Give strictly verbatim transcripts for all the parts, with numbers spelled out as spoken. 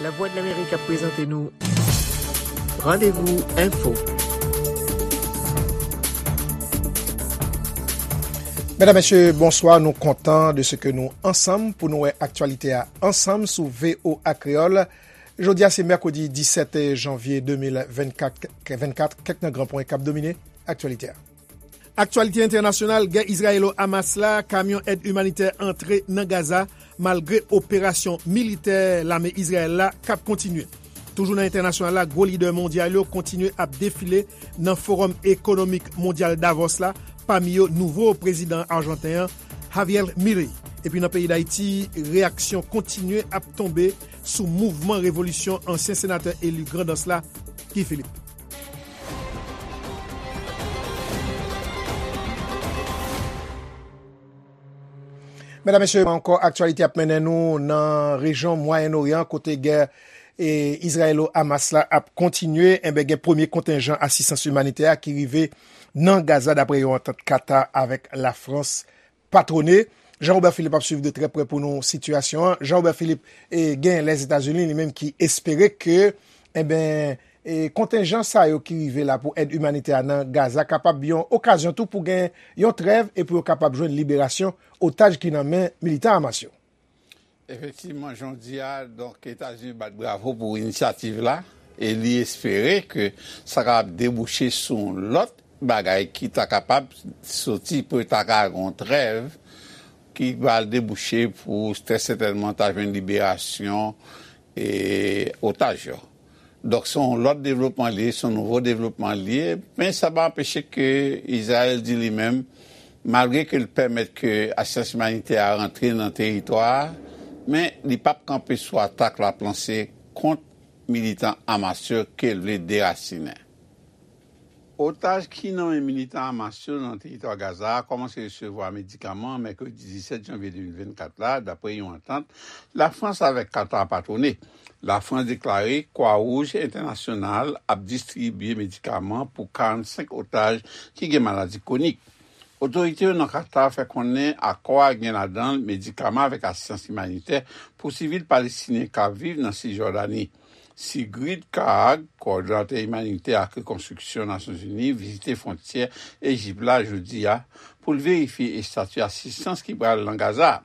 Lavwadlamerik ap prezante nou Randevou Enfo. Medam, mesye, bonswa. Nou kontan de se ke nou ansanm pou nou wè aktyalite a ansanm sou V O A Kreyòl. Jodi a, se mèkredi disèt janvye de mil vennkat, vennkat, kèk nan gran pwen k ap domine aktyalite a. Aktyalite entènasyonal, gè Izrayelo-Hamas la, kamyon èd imanitè antre nan Gaza, malgre operasyon militè lame Izrayèl la k ap kontinye. Toujou nan entènasyonal la, gwo lidè mondyal yo kontinye ap defile nan Fowòm Ekonomik Mondyal Davos la, pami yo nouvo prezidan ajanten an, Javier Milei. Epi nan peyi Dayiti, reyaksyon kontinye ap tonbe sou mouvman revolisyon ansyen senatè eli Grandans la, Guy Philippe. Medam, mesye, ankò aktyalite ap mennen nou nan rejyon Mwayen Oryan, kote gè e Izrayelo-Hamas la ap kontinye. Enben, gen premye kontenjan asistans imanitè a ki rive nan Gaza, dapre yon antant Katar avèk Lafrans patwone. Jean Robert Philippe ap swiv de trè prè pou nou sitiyasyon an. Jean Robert Philippe, e, gen Lèzetazini li menm ki espere ke, enben, e, kontenjan sa yo ki rive la pou èd imanitè a nan Gaza kapab yon okazyon tou pou gen yon trèv e pou yo kapab jwenn liberasyon otaj ki nan men militan Hamas yo. Efektivman, jan w di a, donk, Etazini bat bravo pou inisyativ la e li espere ke sa kapab debouche sou yon lòt bagay ki ta kapab soti pou ta ka gen yon trèv ki va debouche pou trè sètènman ta jwenn liberasyon e otaj yo. Donk, se yon lòt devlopman li ye, se yon nouvo devlopman li ye, men sa pa anpeche ke Izrayèl di li menm, malgre ke l pèmèt ke asistans imanitè a rantre nan teritwa a, men li p ap kanpe sou atak l ap lanse kont militan Hamas yo ke l vle derasinen. Otaj ki nan men militan Hamas yo nan teritwa Gaza a kòmanse resevwa medikaman mèkredi disèt janvye de mil vennkat la, dapre yon antant Lafrans avèk Katar patwone. Lafrans deklare Kwa Wouj Entènasyonal ap distribye medikaman pou karannsenk otaj ki gen maladi kwonik. Otorite yo nan Katar fè konnen akò a gen ladan l medikaman avèk asistans imanitè pou sivil palestinyen k ap viv nan Sijòdani. Sigrid Kaag, kowòdonatè imanitè ak rekonstriksyon Nasyonzini, vizite fwontyè Ejip la jodi a pou l verifye estati asistans ki pral nan Gaza.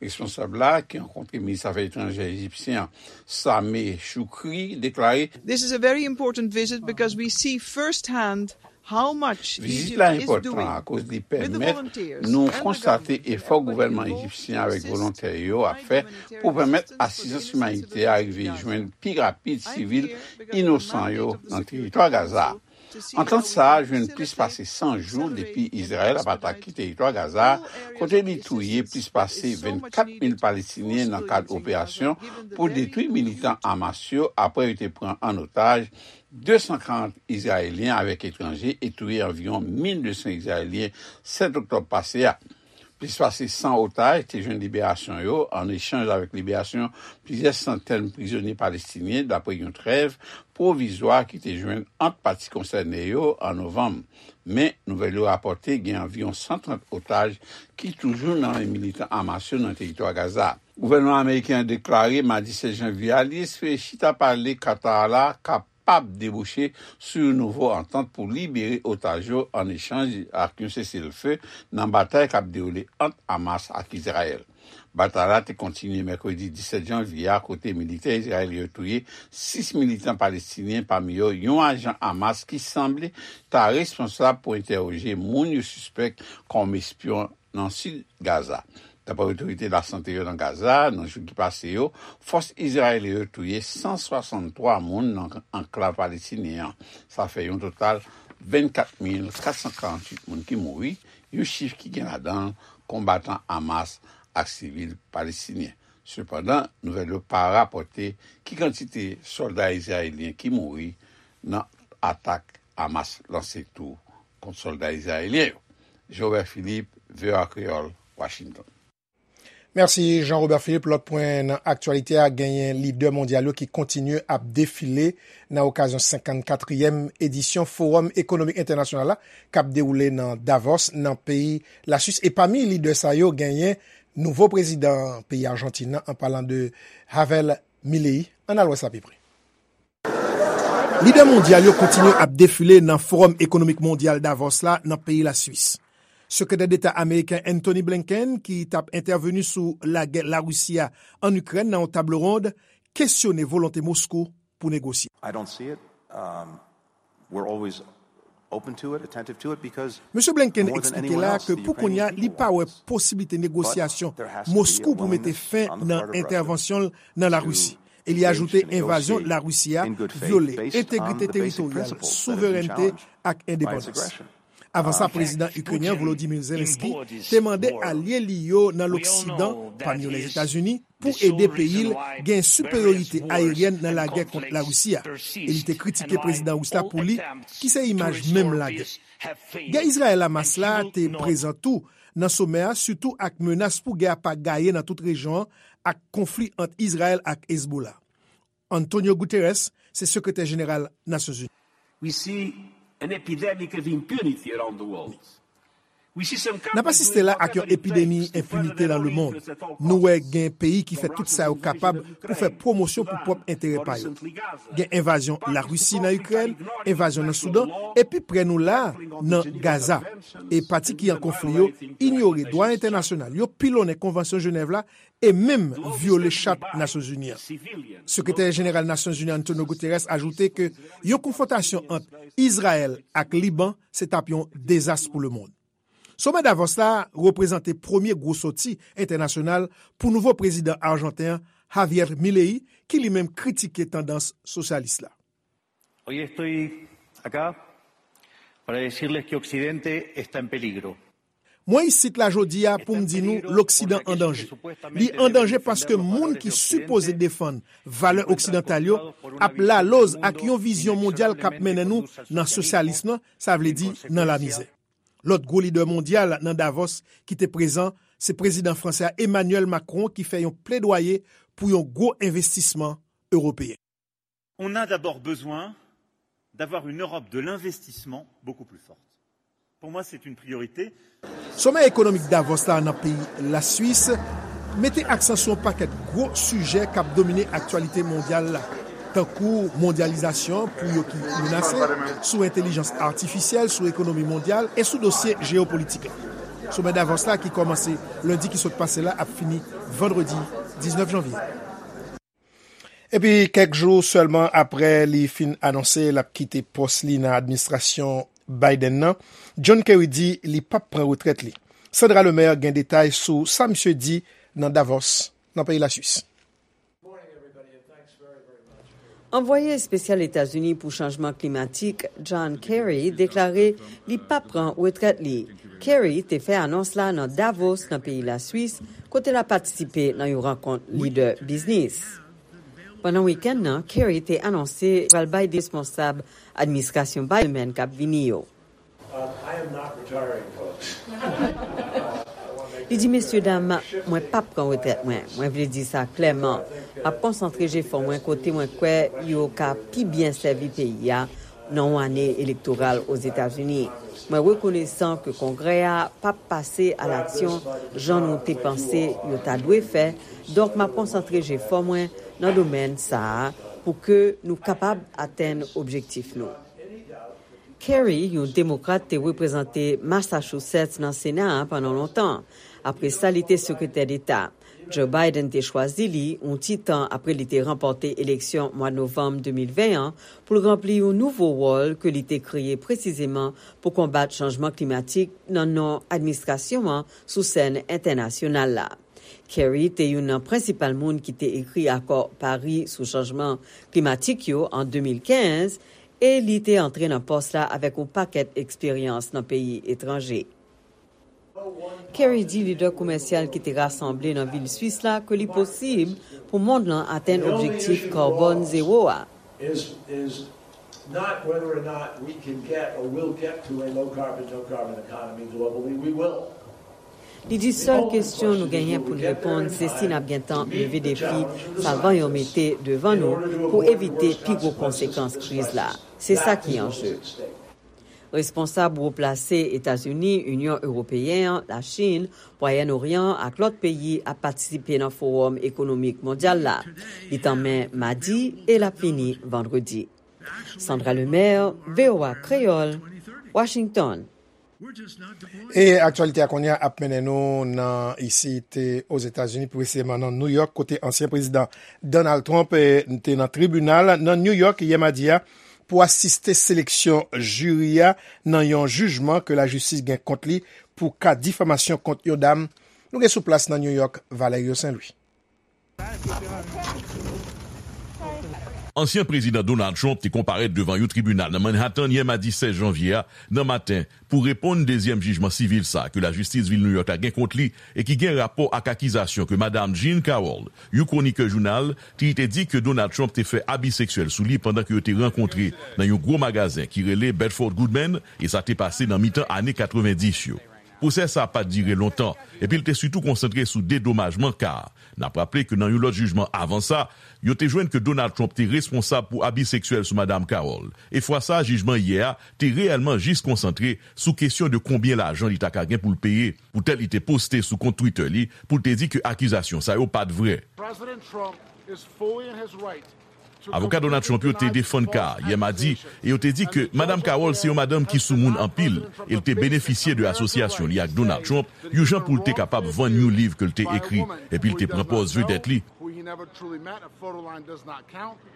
Responsab la, ki rankontre minis afè etranjè ejipsyen an, Sameh Shoukry, deklare, This is a very important visit because we see firsthand how much Vizit la enpòtan akoz li pèmèt nou konstate efò gouvènman ejipsyen avèk volontè yo ap fè pou pèmèt asistans imanitè a rive jwenn pi rapid sivil inosan yo nan teritwa Gaza a. Antant sa a jwenn plis pase san jou depi Izrayèl ap atake teritwa Gaza a, kote li touye plis pase vennkat mil Palestinyen nan kad operasyon pou detwi militan Hamas yo apre yo te pran an otaj de san karant Izrayelyen avèk etranje e touye anviwon mil de san Izrayelyen sèt oktòb pase a. Plis pase san otaj te jwenn liberasyon yo an echanj avèk liberasyon plizyè santèn prizonye palestinyen, dapre yon trèv pwovizwa ki te jwenn ant pati konsène yo an novanm. Men, nouvèl yo rapòte gen anviwon san trant otaj ki toujou nan men militan Hamas yo nan teritwa Gaza. Gouvènman ameriken an deklare madi sèz janvye a li espere chita pale Katar la kapab debouche sou yon nouvo antant pou libere otaj yo an echanj ak yon seselfe nan batay k ap dewoule ant Hamas ak Izrayèl. Batay la te kontinye mèkredi disèt janvye a, kote militè izrayelyen yo touye sis militan palestinyen, pami yo yon ajan Hamas ki sanble ta responsab pou entèwoje moun yo sispèk kòm espyon nan sid Gaza. Dapre otorite lasante yo nan Gaza, nan jou ki pase yo, fòs izrayelyen yo touye san swasanntwa moun nan anklav palestinyen an. Sa fè yon total vennkat mil kat san karannwit moun ki mouri, yon chif ki gen ladan l konbatan Hamas ak sivil palestinyen. Sepandan, nouvèl yo pa rapòte ki kantite sòlda izrayelyen ki mouri nan atak Hamas lanse tou kont sòlda izrayelyen yo. Jean Robert Philippe, V O A Kreyòl, Washington. Mèsi, Jean Robert Philippe. Lòt pwen nan aktyalite a, genyen lidè mondyal yo ki kontinye ap defile nan okazyon senkannkatriyèm edisyon Fowòm Ekonomik Entènasyonal la, k ap dewoule nan Davos, nan peyi Laswis. E pami lidè sa yo, genyen nouvo prezidan peyi Ajantin nan, an palan de Javier Milei, ann al wè sa pi pre. Lidè mondyal yo kontinye ap defile nan Fowòm Ekonomik Mondyal Davos la nan peyi Laswis. Sekretè Deta ameriken Antony Blinken, ki t ap entèveni sou lagè Larisi a ann Ikrèn nan yon tablo wonn, kesyone volonte Moskou pou negosye. I don't see it. Um, we're always open to it, attentive to it, because Mesye Blinken eksplike la ke pou kounye a, li pa wè posiblite negosyasyon Moskou pou mete fen nan entèvansyon l nan Larisi. E li ajoute envazyon Larisi a vyole entegrite teritoryal, souverènte ak endepandans. Avan sa, prezidan ikrenyen Volodymyr Zelensky te mande alye li yo nan Loksidan, pami yo Lèzetazini, pou ede peyi l gen siperyorite ayeryèn nan lagè kont Larisi a. E li te kritike prezidan ris la pou li, ki se imaj menm lagè. Gè Izrayèl-Hamas la te prezan tou nan somè a, sitou ak menas pou gè a pa gaye nan tout rejyon an ak konfli ant Izrayèl ak Hezbollah. Antonio Guterres se sekretè jeneral Nasyonzini. We see an epidemic of impunity around the world. N ap asiste la ak yon epidemi enpinite nan lemonn. Nou wè gen peyi ki fè tout sa yo kapab pou fè pwomosyon pou pwòp enterè pa yo. Gen envazyon Larisi nan Ikrèn, envazyon nan Soudan, e pi prè nou la a, nan Gaza. E pati ki an konfli yo inyore dwa entènasyonal, yo pilonnen Konvansyon Jenèv la e menm vyole Chat Nasyonzini an. Sekretè jeneral Nasyonzini Antonio Guterres ajoute ke yon konfwontasyon ant Izrayèl ak Liban se t ap yon dezas pou lemonn. Somè Davos la reprezante premye gwo sòti entènasyonal pou nouvo prezidan ajanten an, Javier Milei, ki li menm kritike tandans sosyalis la. Hoy estoy acá para decirles que Occidente está en peligro. Mwen isit la jodi a pou m di nou Loksidan an danje. Li an danje paske moun ki sipoze defann valè oksidantal yo ap laloz ak yon vizyon mondyal k ap mennen nou nan sosyalism nan, sa vle di nan lamizè. Lòt gwo lidè mondyal nan Davos ki te prezan, se prezidan franse a Emmanuel Macron ki fè yon pledwaye pou yon gwo envestisman ewopeyen. On a d'abord besoin d'avoir une Europe de l'investissement beaucoup plus forte. Pour moi, c'est une priorité. Somè ekonomik Davos la nan peyi Laswis mete aksan sou yon pakèt gwo sijè k ap domine aktyalite mondyal la, tankou mondyalizasyon pou yo ki menase, sou entèlijans atifisyèl, sou ekonomi mondyal e sou dosye jeyopolitik la. Somè Davos la ki kòmanse lendi ki sot pase la ap fini vandredi diznèf janvye. Epi kèk jou sèlman apre li fin anonse l ap kite pòs li nan administrasyon Biden nan, John Kerry di li p ap pran retrèt li. Sandra Lemaire gen detay sou sa misye di nan Davos, nan peyi Laswis. Anvwaye espesyal Etazini pou chanjman klimatik, John Kerry, deklare li p ap pran retrèt li. Kerry te fè anons la nan Davos, nan peyi Laswis, kote l ap patisipe nan yon rankont lidè biznis. Pandan wikenn nan, Kerry te anonse pral bay responsab administrasyon Biden k ap vini yo. Li di, "Mesye dam, mwen p ap pran retrèt mwen. Mwen vle di sa klèman. M ap konsantre jefò mwen kote mwen kwè yo ka pi byen sèvi peyi a nan yon ane elektoral Ozetazini. Mwen rekonesan ke Kongrè a p ap pase alaksyon jan nou te panse yo ta dwe fè, donk m ap konsantre jefò mwen nan domèn sa a pou ke nou kapab atenn objektif nou." Kerry, yon demokrat, te reprezante Massachusetts nan Sena a pandan lontan. Apre sa, li te sekretè deta. Joe Biden te chwazi li, yon ti tan apre li te ranpòte eleksyon mwa novanm de mil ven an, pou l ranpli yon nouvo wòl ke li te kreye presizeman pou konbat chanjman klimatik nan non administrasyon an sou sèn entènasyonal la. Kerry te youn nan prensipal moun ki te ekri akò Pari sou chanjman klimatik yo an de mil kenz, e li te antre nan pòs la avèk yon pakèt eksperyans nan peyi etranje. Kerry di lidè komèsyal ki te rasanble nan vil Swis la ke li posib pou mond lan atenn objektif karbòn zewo a. Is, is not whether or not we can get or will get to a low carbon, no carbon economy globally. We will. Li di sèl kesyon nou genyen pou n reponn, se si n ap gentan leve defi sa van yo mete devan nou pou evite pi gwo konsekans kriz la. Se sa ki anje. Responsab wo plase Etazini, Inyon Ewopeyen an, Lachin, Mwayen Oryan ak lòt peyi ap patisipe nan Fowòm Ekonomik Mondyal la. Li tanmen madi e l ap fini vandredi. Sandra Lemaire, V O A Kreyòl, Washington. E aktyalite a kounye a ap mennen nou nan isit Ozetazini, pi presizeman nan New York, kote ansyen prezidan Donald Trump eh, te nan tribinal nan New York yè madi a pou asiste seleksyon jiri a nan yon jijman ke lajistis gen kont li pou ka difamasyon kont yon dam. Nou gen sou plas nan New York, Valerio Saint Louis. Ansyen Prezidan Donald Trump te konparèt devan yon tribinal nan Manhattan yè madi sèz janvye a nan maten pou reponn dezyèm jijman sivil sa a ke lajistis vil New York la gen kont li e ki gen rapò ak akizasyon ke Madam Jean Carroll, yon kwonikè jounal, te te di ke Donald Trump te fè abi seksyèl sou li pandan ke yo te rankontre nan yon gwo magazen ki rele Bedford Goodman e sa te pase nan mitan ane katrevenndis yo. Pwosè sa a pa t dire lontan, epi l te sitou konsantre sou dedomajman ka a. N ap raple ke nan yon lòt jijman avan sa, yo te jwenn ke Donald Trump te responsab pou abi seksyèl sou Madam Carroll. E fwa sa a, jijman yè a te reyèlman jis konsantre sou kesyon de konbyen lajan li ta ka gen pou l peye. Poutèt li te poste sou kont Twitter li pou l te di ke akizasyon sa yo pa t vrè. Avoka Donald Trump yo te defann ka a yè madi e yo te di ke Madam Carroll se yon madanm ki soumoun anpil e l te benefisye de asosyasyon li ak Donald Trump, yon jan pou l te kapab vann yon liv ke l te ekri, epi l te pran pòz vedèt li.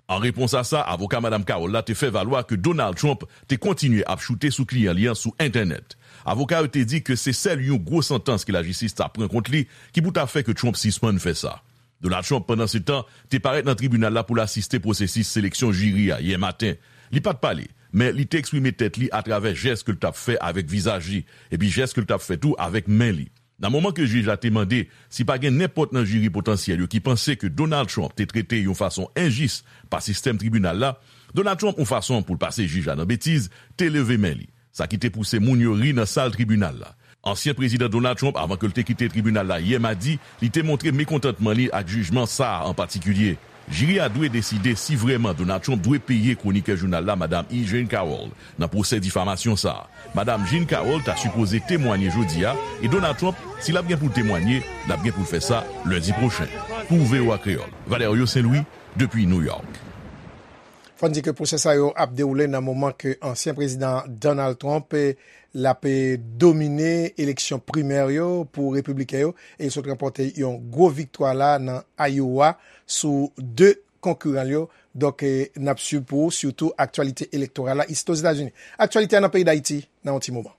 An repons a sa, avoka Madam Carroll la te fè valwa ke Donald Trump te kontinye ap choute sou kliyan li an sou entènèt. Avoka yo te di ke se sèl yon gwo santans ke lajistis ta pran kont li ki pou ta fè ke Trump sispann fè sa. Donald Trump, pandansetan, te parèt nan tribinal la pou l asiste pwosesis seleksyon jiri a yè maten. Li pa t pale, men li te eksprime tèt li atravè jès ke l t ap fè avèk vizaj li, epi jès ke l t ap fè tou avèk men li. Nan moman ke jij la te mande si pa gen nenpòt nan jiri potansyèl yo ki panse ke Donald Trump te trete yon fason enjis pa sistèm tribinal la, Donald Trump, yon fason pou l pase jij la nan betiz, te leve men li. Sa ki te pouse moun yo ri nan sal tribinal la. Ansyen Prezidan Donald Trump, avan ke l te kite tribinal la yè madi, li te montre mekontantman li ak jijman sa a an patikilye. Jiri a dwe deside si vrèman Donald Trump dwe peye kwonikè jounal la, Madam E. Jean Carroll, nan pwosè difamasyon sa a. Madam Jean Carroll ta sipoze temwanye jodi a, e Donald Trump, si l ap gen pou l temwanye, l ap gen pou l fè sa lendi pwochen. Pou V O A Kreyòl, Valerio Saint Louis, depi New York. Fò n di ke pwosè sa yo ap dewoule nan moman ke ansyen prezidan Donald Trump l ap domine eleksyon primè yo pou repibliken yo e sot ranpòte yon gwo viktwa la nan Iowa sou de konkiran l yo. Donk n ap swiv pou ou sitou aktyalite elektoral la isit Ozetazini. Aktyalite a nan peyi Dayiti nan yon ti moman.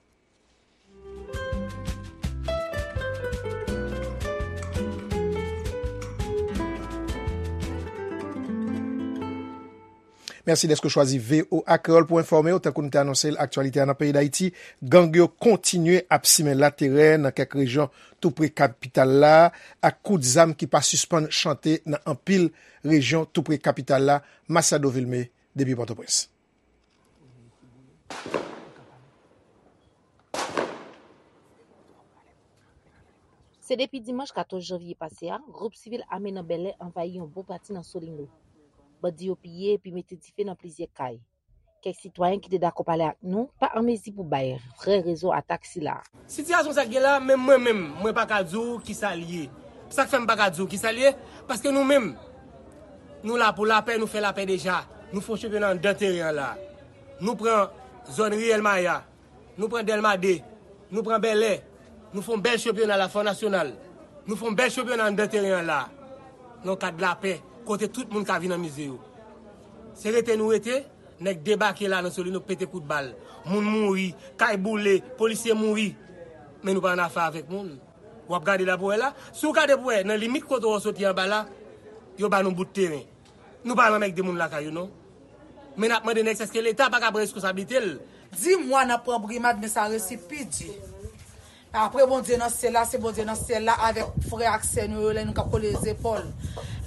Mèsi dèske w chwazi V O A Kreyòl pou enfòme w. Tankou nou te anonse l, aktyalite a nan peyi Dayiti, gang yo kontinye ap simen laterè nan kèk rejyon tou pre kapital la, ak kout zam ki pa sispann chante nan anpil rejyon tou pre kapital la. Masiado Vilmé, depi Pòtoprens. Se depi dimanch katòz janvye pase a, gwoup sivil ame nan Bèlè anvayi yon bon pati nan Solino. Bandi yo piye epi mete dife nan plizyè kay. Kèk sitwayen ki te dakò pale ak nou pa an mezi pou bay vrè rezon atak sila. Sitiyasyon sa k gen la, menm mwen menm, mwen pa ka di w kisa l ye. Sa k fè m pa ka di w kisa l ye, paske nou menm, nou la pou lapè, nou fè lapè deja. Nou fè yon chanpyona anndan teren an la. Nou pran zòn Riyèl Maya, nou pran Dèlma de, nou pran Bèlè, nou fè yon bèl chanpyona la, fè yon nasyonal. Nou fè yon bèl chanpyona anndan teren an la. Nan yon kad lapè, kote tout moun ka vin anmize yo. Se rete nou rete, nèg debake la nan Solino pete kout bal. Moun mouri, kay boule, polisye mouri. Men nou pa annafè avèk moun. W ap gade la pou wè la. Si w gade pou wè, nan limit kote w soti anba la, yo ba nou bout teren. Nou pa nan mèg de moun lakay yo non. Men n ap mande nèg sa èske Leta pa ka pran reskonsablite l. Di mwa n ap pran brimad men sa resi pi di. Apre Bondye nan syèl la, se Bondye nan syèl la avèk frè ak sè nou yo lè nou k ap kole zepòl.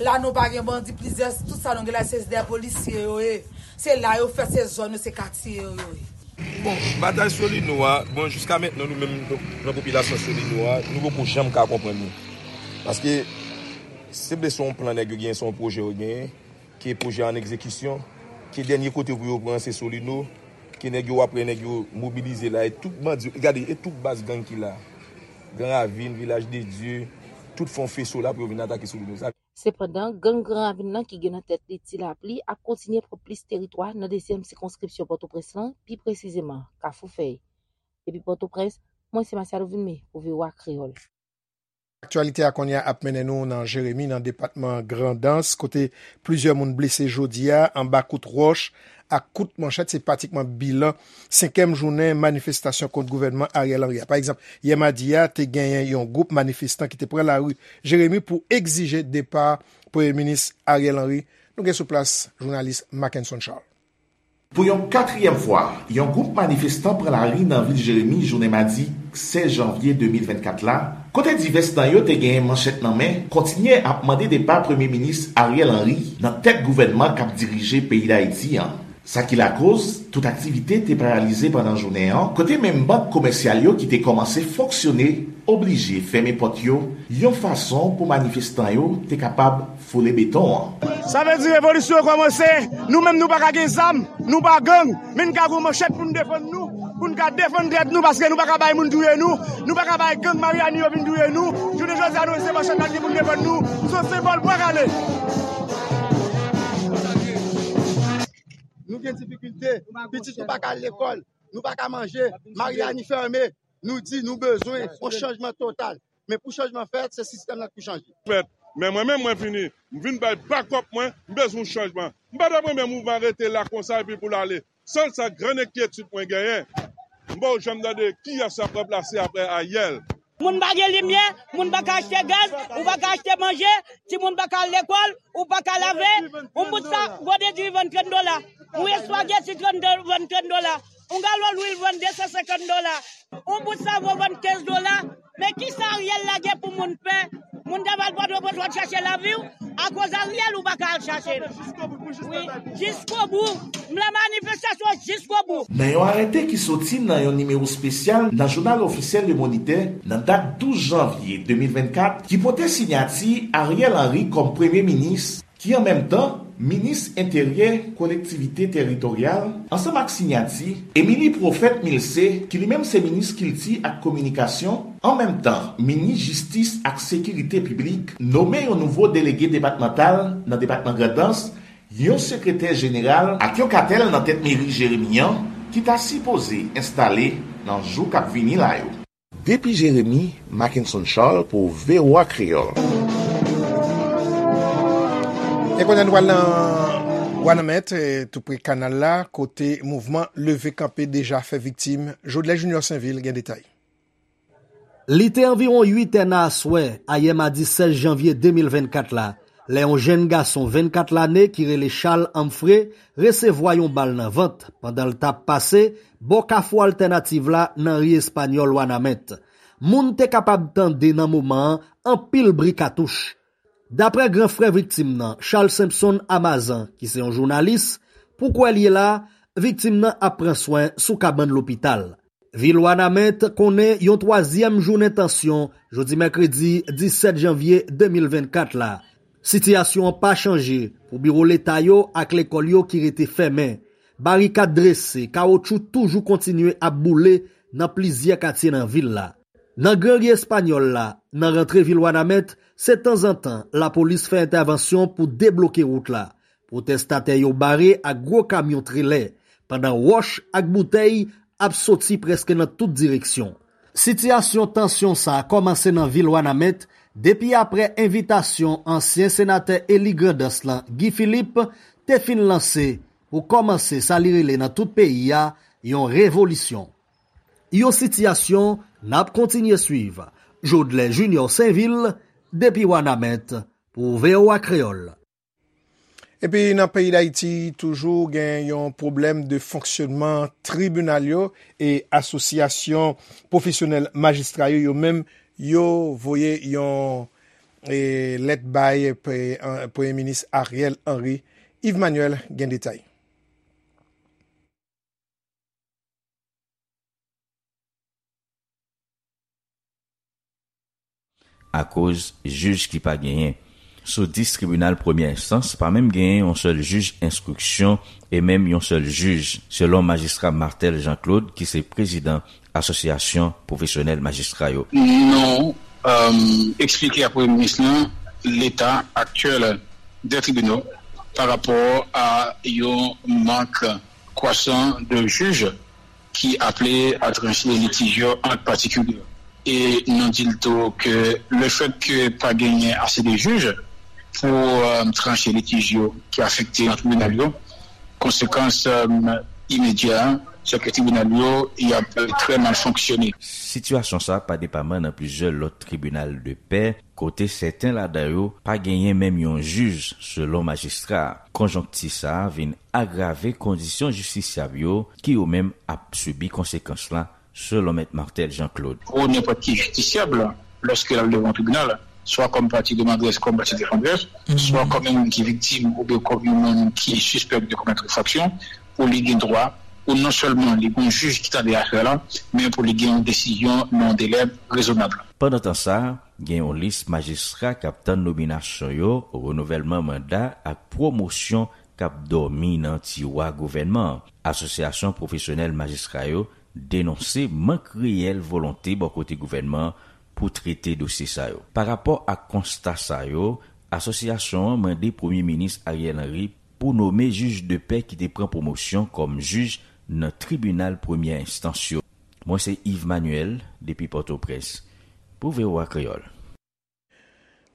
La nou pa gen bandi, plizyè, tout sa nou gen la se dèyè polisye yo ye. Se la yo fèt, se zòn yo, se katye yo yo ye. Bon, batay Solino a, bon jiska mentnan nou menm nan popilasyon Solino a, nou poko janm ka konprann li. Paske, se vle se yon plan nèg yo genyen, se yon pwojè yo genyen, ke pwojè a an egzekisyon, ke dènye kote pou yo pran se Solino, ke nèg yo, w ap wè nèg yo mobilize la, e tout bandi, gade, e tout baz gang ki la. Gran Ravin, Vilaj de Dye, tout fè yon feso la pou yo vin atake sou nou. Sa Sepandan, gang Gran Ravin nan ki gen nan tèt li Ti Lapli ap kontinye pran plis teritwa nan dezyèm sikonskripsyon Pòtoprens lan, pi presizeman Kafou Fèy. Depi Pòtoprens, mwen se Masiado Vilmé pou V O A Kreyòl. Aktyalite a kounye a ap mennen nou nan Jeremi, nan depatman Grandans, kote plizyè moun blese jodi a anba kout wòch ak kout manchèt. Se pratikman bilan senkyèm jounen manifestasyon kont gouvènman Ariel Henry a. Pa egzanp, yè madi a, te genyen yon gwoup manifestan ki te pran lari Jeremi pou egzije depa Premye Minis Ariel Henry. Nou gen sou plas jounalis Mackenson Charles. Pou yon katriyèm fwa, yon gwoup manifestan pran lari nan vil Jeremi jounen madi sèz janvye de mil vennkat la, kote divès nan yo te genyen manchèt nan men, kontinye ap mande depa Premye Minis Ariel Henry nan tèt gouvènman k ap dirije peyi Dayiti an. Sa ki lakoz, tout aktivite te paralize pandan jounen an, kote menm bank komèsyal yo ki te kòmanse fonksyone oblije fèmen pòt yo, yon fason pou manifestan yo te kapab foule beton an. Sa vle di revolisyon an kòmanse, nou menm nou pa ka gen zam, nou pa gang, men n ka gen manchèt pou n defann nou, pou n ka defann tèt nou, paske nou pa ka bay moun touye nou, nou pa ka bay gang Maryani yo vin touye nou. Jounen jodi a, nou se manchèt la gen pou n defann nou, se yon senbòl bwa kale. Nou gen difikilte, pitit nou pa ka al lekòl, nou pa ka manje, Maryani fèmen. Nou di nou bezwen yon chanjman total. Men pou chanjman fèt, se sistèm nan k pou chanje. Fèt. Men mwen menm, mwen vini, m vin bay bakòp mwen, m bezwen yon chanjman. M pa t ap renmen mouvman rete la konsa epi pou l ale. Sèl sa, grann enkyetid mwen genyen, m pa janm tande kiyès ap ranplase apre Ariel. Moun pa gen limyè, moun pa ka achte gaz, ou pa ka achte manje, timoun pa ka al lekòl, ou pa ka lave, yon bout sa, gode diri vann trant dola, yon espageti trant do-, vann trant dola, yon galon lwil vann de san senkant dola, yon bout savon vann kenz dola. Men kisa Ariel lage pou moun pè? Moun ta pral Pòtoprens w ap chache lavi w, akoz Ariel ou pa ka al chache l. Wi, jiskobou. M nan manifestasyon jiskobou. Nan yon arete ki soti nan yon nimewo espesyal nan jounal ofisyèl Le Moniteur nan dat douz janvye de mil vennkat, ki pote siyati Ariel Henry kòm premye minis, ki an menm tan minis enteryè kolektivite teritoryal, ansanm ak siyati Émilie Prophète Milcé, ki li menm se minis kilti ak kominikasyon, an menm tan minis jistis ak sekirite piblik, nome yon nouvo delege depatmantal nan depatman Grandans, yon sekretè jeneral ak yon katèl nan tèt meri Jeremi an ki ta sipoze enstale nan jou k ap vini la yo. Depi Jeremi, Mackenson Charles pou V O A Kreyòl. E kounye a nou pral nan Wanament, eh, tou pre kanal la, kote mouvman leve kanpe deja fè viktim. Jodlè Junior Sainvil gen detay. Li te anviwon uit è nan aswè, ayè madi sèz janvye de mil vennkat la, lè yon jenn gason vennkat lane ki rele Charles Humphrey resevwa yon bal nan vant pandan l t ap pase bò Kafou Altènativ la nan ri Espanyòl Wanament. Moun te kapab tande nan moman an anpil bri katouch. Daprè gran frè viktim nan, Charles Simpson Amazan, ki se yon jounalis, pou kwè l ye la, viktim nan ap pran swen sou kabann lopital. Vil Wanament konnen yon twazyèm jounen tansyon jodi mèkredi disèt janvye de mil vennkat la. Sitiyasyon an pa chanje pou biwo leta yo ak lekòl yo ki rete fèmen. Barikad drese, kawotchou toujou kontinye ap boule nan plizyè katye nan vil la. Nan Gran Ri Espanyòl la, nan rantre vil Wanament, se tanzantan lapolis fè entèvansyon pou debloke wout la. Pwotestatè yo bare ak gwo kamyon trelè, pandan wòch ak boutèy ap soti prèske nan tout direksyon. Sitiyasyon tansyon sa a kòmanse nan vil Wanament depi aprè envitasyon ansyen senatè eli Grandans lan, Guy Philippe, te fin lanse pou kòmanse sa li rele nan tout peyi a yon revolisyon. Yon sitiyasyon n ap kontinye swiv. Jodlè Junior Sainvil, depi Wanament, pou V O A Kreyòl. Epi nan peyi Dayiti, toujou gen yon pwoblèm de fonksyonman tribinal yo e asosyasyon pwofesyonèl majistra yo, yo menm, yo voye yon, e, lèt bay pre-, an, Premye Minis Ariel Henry. Yves Manuel gen detay. Akoz jij ki pa genyen. Sou dis tribinal premyè enstans, pa menm genyen yon sèl jij enstriksyon e menm yon sèl jij, selon majistra Marthel Jean Claude, ki se prezidan Asosyasyon Pwofesyonèl Majistra yo. Nou eksplike a Premye Minis lan leta aktyèl dè tribinal pa rapò a yon mank kwasan de jij ki aple a tranche litij yo ant patikilye. E nou di l tou ke lefèt ke pa genyen ase de jij pou tranche litij yo ki afekte nan tribinal yo, konsekans imedya a se ke tribinal yo y ap trè mal fonksyone. Sitiyasyon sa pa depaman nan plizyè lòt tribinal de pè, kote sèten ladan yo pa genyen menm yon jij, selon majistra a. Konjonkti sa a vin agrave kondisyon jistisyab yo, ki yo menm ap sibi konsekans la, selon mèt Marthel Jean Claude. Pou nenpòt ki jistisyab, lòske l al devan yon tribinal, swa kòm pati demanderè, kòm pati defandè, swa kòm yon moun ki viktim oubyen kòm yon moun ki sispèk de komèt enfraksyon, pou li gen dwa pou non sèlman li gen yon jij ki tande afè la, men pou li gen yon desizyon nan yon delè rezonab. Pandan tan sa, gen yon lis majistra k ap tann nominasyon yo, renouvèlman manda ak pwomosyon k ap dòmi nan tiwa gouvènman an. Asosyasyon pwofesyonèl majistra yo denonse mank reyèl volonte bò kote gouvènman an pou trete dosye sa yo. Pa rapò ak konsta sa yo, asosyasyon an mande Premye Minis Ariel Henry pou nome jij de pè ki te pran pwomosyon kòm jij nan tribinal premyè enstans yo. Mwen se Yves Manuel, depi Pòtoprens, pou V O A Kreyòl.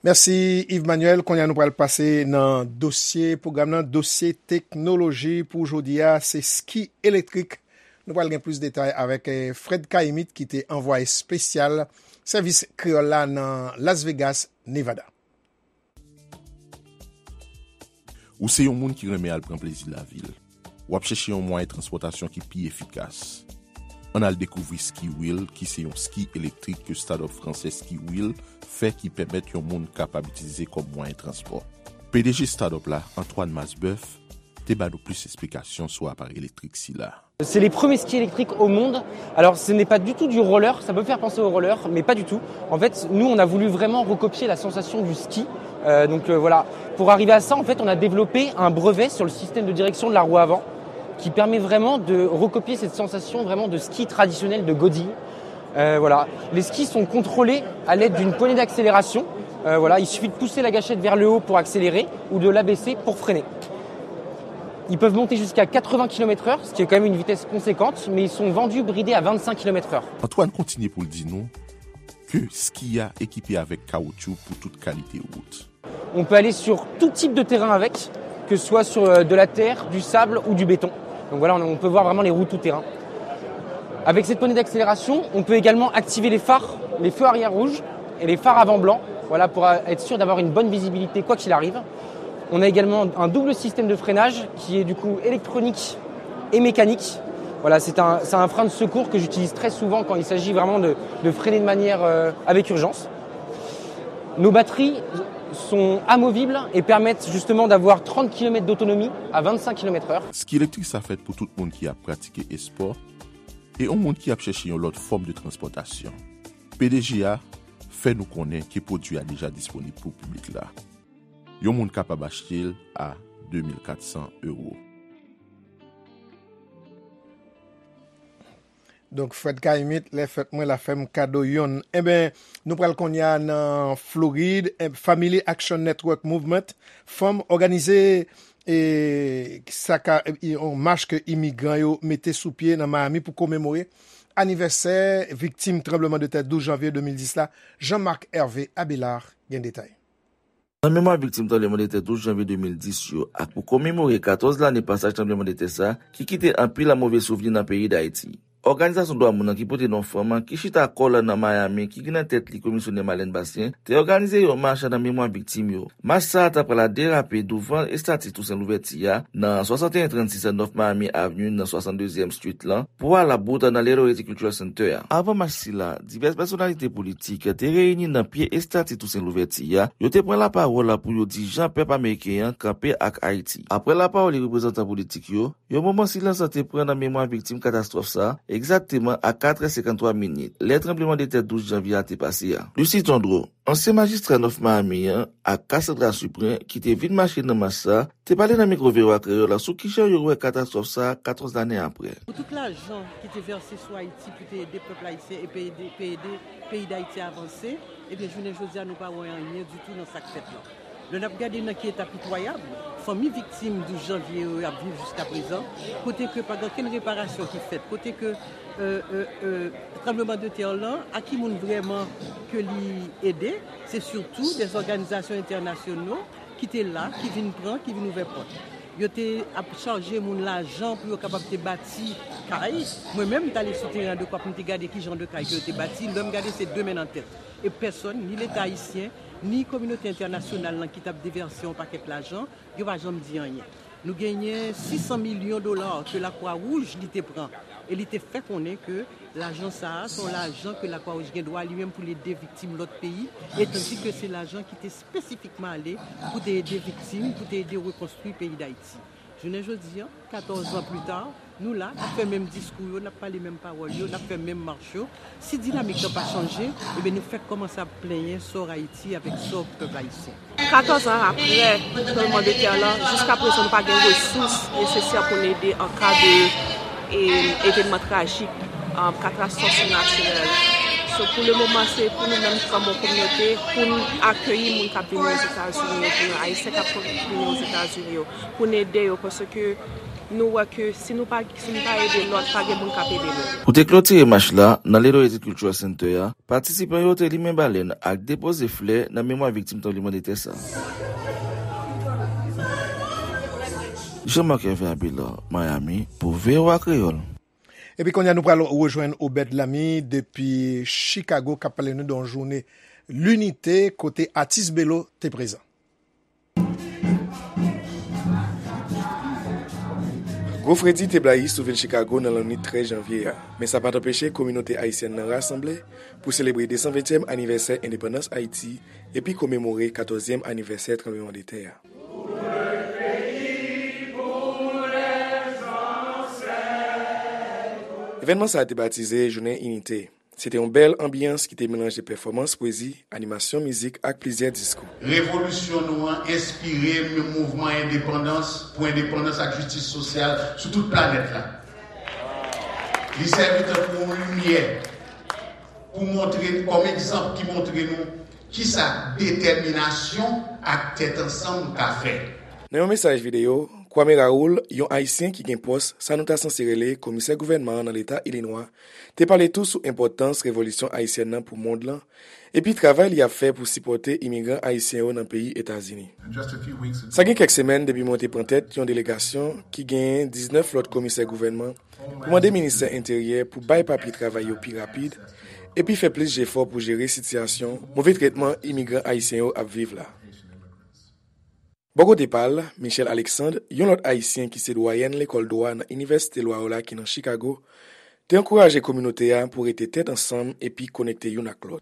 Mèsi, Yves Manuel. Kounye a, nou pral pase nan dosye pwogram nan, dosye teknoloji pou jodi a, se ski elektrik. Nou pral gen plis detay avèk, eh, Fred Caïmite, ki te anvwaye espesyal Sèvis Kreyòl la nan Las Vegas, Nevada. Ou se yon moun ki renmen al pran plezi lavi l. W ap chèche yon mwayen transpòtasyon ki pi efikas. Ann al dekouvri Ski Wheel, ki se yon ski elektrik ke startup fransè Ski Wheel fè, ki pèmèt yon moun kapab itilize kòm mwayen transpò. P D G startup la, Antoine Masbeuf, te ba nou plis esplikasyon sou aparèy elektrik sila. C'est les premiers skis électriques au monde. Alors, ce n'est pas du tout du roller, ça peut faire penser au roller, mais pas du tout. En fait, nous, on a voulu vraiment recopier la sensation du ski. Euh, donc euh, voilà, pour arriver à ça, en fait, on a développé un brevet sur le système de direction de la roue avant, qui permet vraiment de recopier cette sensation vraiment de ski traditionnel de Godille. Euh, voilà. Les skis sont contrôlés à l'aide d'une poignée d'accélération. Euh, voilà, il suffit de pousser la gâchette vers le haut pour accélérer ou de l'abaisser pour freiner. Ils peuvent monter jusqu'à quatre-vingts kilomètres heure, ce qui est quand même une vitesse conséquente, mais ils sont vendus bridés à vingt-cinq kilomètres heure. Antoine kontinye pou l di nou ke ski a ekipe avèk kawoutchou pou tout kalite wout. On peut aller sur tout type de terrain avec, que ce soit sur euh, de la terre, du sable ou du béton. Donc voilà, on, on peut voir vraiment les roues tout terrain. Avec cette poignée d'accélération, on peut également activer les phares, les feux arrière rouges et les phares avant blanc, voilà, pour euh, être sûr d'avoir une bonne visibilité quoi qu'il arrive. On a également un double système de freinage qui est du coup électronique et mécanique. Voilà, c'est un, c'est un frein de secours que j'utilise très souvent quand il s'agit vraiment de, de freiner de manière euh, avec urgence. Nos batteries sont amovibles et permettent justement d'avoir trente kilomètres d'autonomie à vingt-cinq kilomètres heure. Ski elektrik sa fèt pou tout moun ki ap pratike espò e yon moun ki ap chèche yon lòt fòm de transpòtasyon. P D G a fè nou konnen ke pwodui a deja disponib pou piblik la. Yon moun kapab achte l a de mil kat san ewo. Donk, Fred Caïmite, lè fèt mwen la fè m kado yonn. Enben, nou pral kounye a nan Florid. Eh, Family Action Network Movement, fanm òganize, eh, sa ka, eh, yon mach ke imigran yo mete sou pye nan Miami pou komemore anivèsè viktim tranblemanntè douz janvye de mil dis la. Jean-Marc Hervé Abélard gen detay. Nan memwa viktim tranblemanntè douz janvye de mil dis yo ak pou komemore katòz lane pasaj tranblemanntè sa ki kite anpil move souvni nan peyi Dayiti, òganizasyon dwa moun nan ki pote non fanm ki chita kò l nan Miami, ki gen nan tèt li Komisyonè Marlène Bastien, te òganize yon mach nan memwa viktim yo. Mach sa a ta pral derape douvan estati Tousen Louvèti a nan swasanteyen trannsis North Miami Avenue nan swasanndezyèm Street lan pou al bout nan Little Haiti Cultural Center a. Avan mach sila, divès pèsonalite politik te reyini nan pye estati Tousen Louvèti a, yo te pran lapawòl pou yo di jan pèp ameriken an kanpe ak Ayiti. Apre lapawòl reprezantan politik yo, yon moman silans te pran nan memwa viktim katastwòf sa, egzakteman a katrè senkanntwa minit, lè tranblemanntè douz janvye a te pase a. Lucie Tondreau, ansyen majistra North Miami an ak Cassandra Suprin, ki te vin mache nan mach sa, te pale nan mikwo V O A Kreyòl la sou kijan yo wè katastwòf sa a katòz lane apre. Pou tout lajan ki te vèse sou Ayiti pou te ede pèp ayisyen e pou ede, pou ede peyi Dayiti avanse, ebyen, jounen jodi a, nou pa wè anyen ditou nan sa k fèt lan. Lè n ap gade nan ki eta pitwayab fanmi viktim douz janvye yo ap viv jiskaprezan, kote ke pa gen okenn reparasyon ki fèt, kote ke, euh, euh, euh, tranblemanntè lan, a ki moun vrèman ke li ede, se sitou de òganizasyon entènasyonal ki te la, ki vin pran, ki vin ouvè pòt. Yo te ap chaje moun lajan pou yo kapab te bati kay. Mwen menm, m t ale sou teren an de kwa pou m te gade ki jan de kay ke yo te bati. Lè m gade, se de men nan tèt. E pèsòn, ni Leta ayisyen, ni kominote entènasyonal lan ki t ap devèse yon pakèt lajan, yo pa janm di anyen. Nou genyen sis san milyon dola ke Lakwa Wouj li te pran e li te fè konnen ke lajan sa a se yon lajan ke Lakwa Wouj gen dwa li menm pou l ede viktim lòt peyi, e tandike se lajan ki te espesifikman ale pou te ede viktim, pou te ede rekonstwi peyi Dayiti. Jounen jodi a, katòz an pli ta, nou la, n ap fè menm diskou yo, n ap pale menm pawòl yo, n ap fè menm mach yo. Si dinamik lan pa chanje, ebyen, nou fèk kòmanse ap plenyen sò Ayiti avèk sò pèp ayisyen. Katòz an apre tranblemanntè lan, jiskaprezan nou pa gen resous nesesè pou n ede an ka de, e, evènman trajik, um, katastwòf natirèl. So, pou le moman, se pou nou menm kòm yon kominote, pou n akeyi moun k ap vini Ozetazini yo, pou Ayisyen k ap vini Ozetazini yo, pou n ede yo, paske nou wè ke si nou pa, si nou pa ede lòt, pa gen moun k ap ede nou. Pou te klotire mach la, nan Little Haiti Cultural Center a, patisipan yo te limen balèn ak depoze flè nan memwa viktim tranblemanntè sa. Jean-Marc Hervé Abelard, Miami, pou V O A Kreyòl. Epi kounye a, nou pral rejwenn Obed Lamy depi Chicago, k ap pale nou de yon jounen linite kote atis Belo te prezan. Gwo fredi te blayi sou vil Chicago nan lannwit trèz janvye a, men sa pa t anpeche kominote ayisyèn nan rasanble pou selebre de san ventyèm anivèsè endepandans Ayiti epi komemore katòzyèm anivèsè tranblemanntè a. Evènman sa a te batize Jounen Inite. Se te yon bèl anbyans ki te melanje pèfòmans pwezi, animasyon mizik ak plizyè diskou. Revolisyon nou an enspire mouvman endepandans, pou endepandans ak jistis sosyal sou tout planèt la. Li sèvi tankou yon limyè pou montre, kòm egzanp ki montre nou kisa detèminasyon ak tèt ansanm ka fè. Nan yon mesaj videyo, Kwame Raoul, yon Ayisyen ki gen pòs sa nou ta sanse rele komisè gouvènman an nan leta Ilinwa, te pale tou sou enpòtans revolisyon ayisyèn nan pou mond lan, epi travay li ap fè pou sipòte imigran ayisyen yo nan peyi Etazini. Sa gen kèk semèn depi mwen te pran tèt yon delegasyon ki genyen diznèf lòt komisè gouvènman pou mande ministè enteryè pou bay papye travay yo pi rapid, epi fè plis jefò pou jere sitiyasyon move tretman imigran ayisyen yo ap viv la. Bò kote pa l, Michelle Alexandre, yon lòt Ayisyen ki se dwayèn lekòl dwa nan Inivèsite Lwa yo la ki nan Chicago, te ankouraje kominote a pou rete tèt ansanm epi konekte youn ak lòt.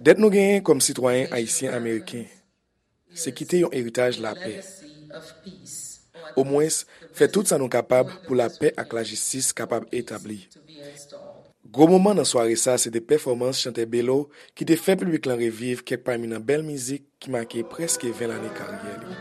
Dèt nou genyen kòm sitwayen ayisyen ameriken, se kite yon eritaj lapè. Omwens, fè tout sa nou kapab pou lapè ak lajistis kapab etabli. Gwo moman nan sware sa se te pèfòmans chantè Belo ki te fè piblik lan reviv kèk pami nan bèl mizik ki make prèske ven lane karyè li.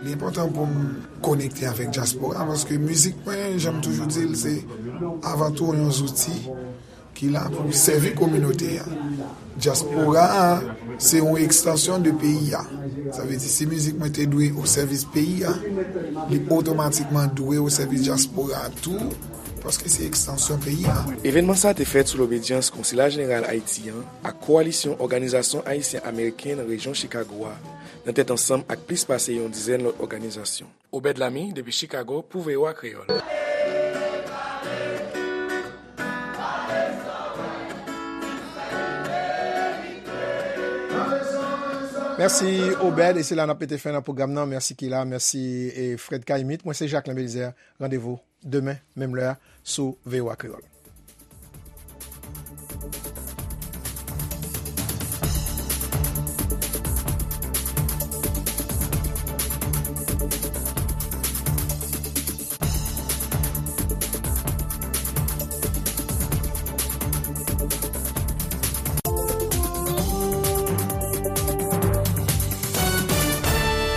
Li enpòtan pou m konekte avèk dyaspora, paske mizik mwen, jan m toujou di l, se avan tou yon zouti ki la pou sèvi kominote a. Dyaspora a, se yon ekstansyon de peyi a. Sa vle di, si mizik mwen te dwe o sèvis peyi a, li otomatikman dwe o sèvis dyaspora a tou, paske se ekstansyon peyi a. Evènman sa a te fèt sou lobedyans Konsila Jeneral Ayiti an ak Kowalisyon Òganizasyon Ayisyen Ameriken nan rejyon Chicago a, nan tèt ansanm ak plis pase yon dizèn lòt òganizasyon. Obed Lamy, depi Chicago, pou V O A Kreyòl. Mèsi, Obed, e se la n ap mete fen nan pwogram nan. Mèsi, Kila, mèsi, e Fred Caïmite. Mwen se Jacquelin Belizaire. Randevou demen, menm lè a, sou V O A Kreyòl.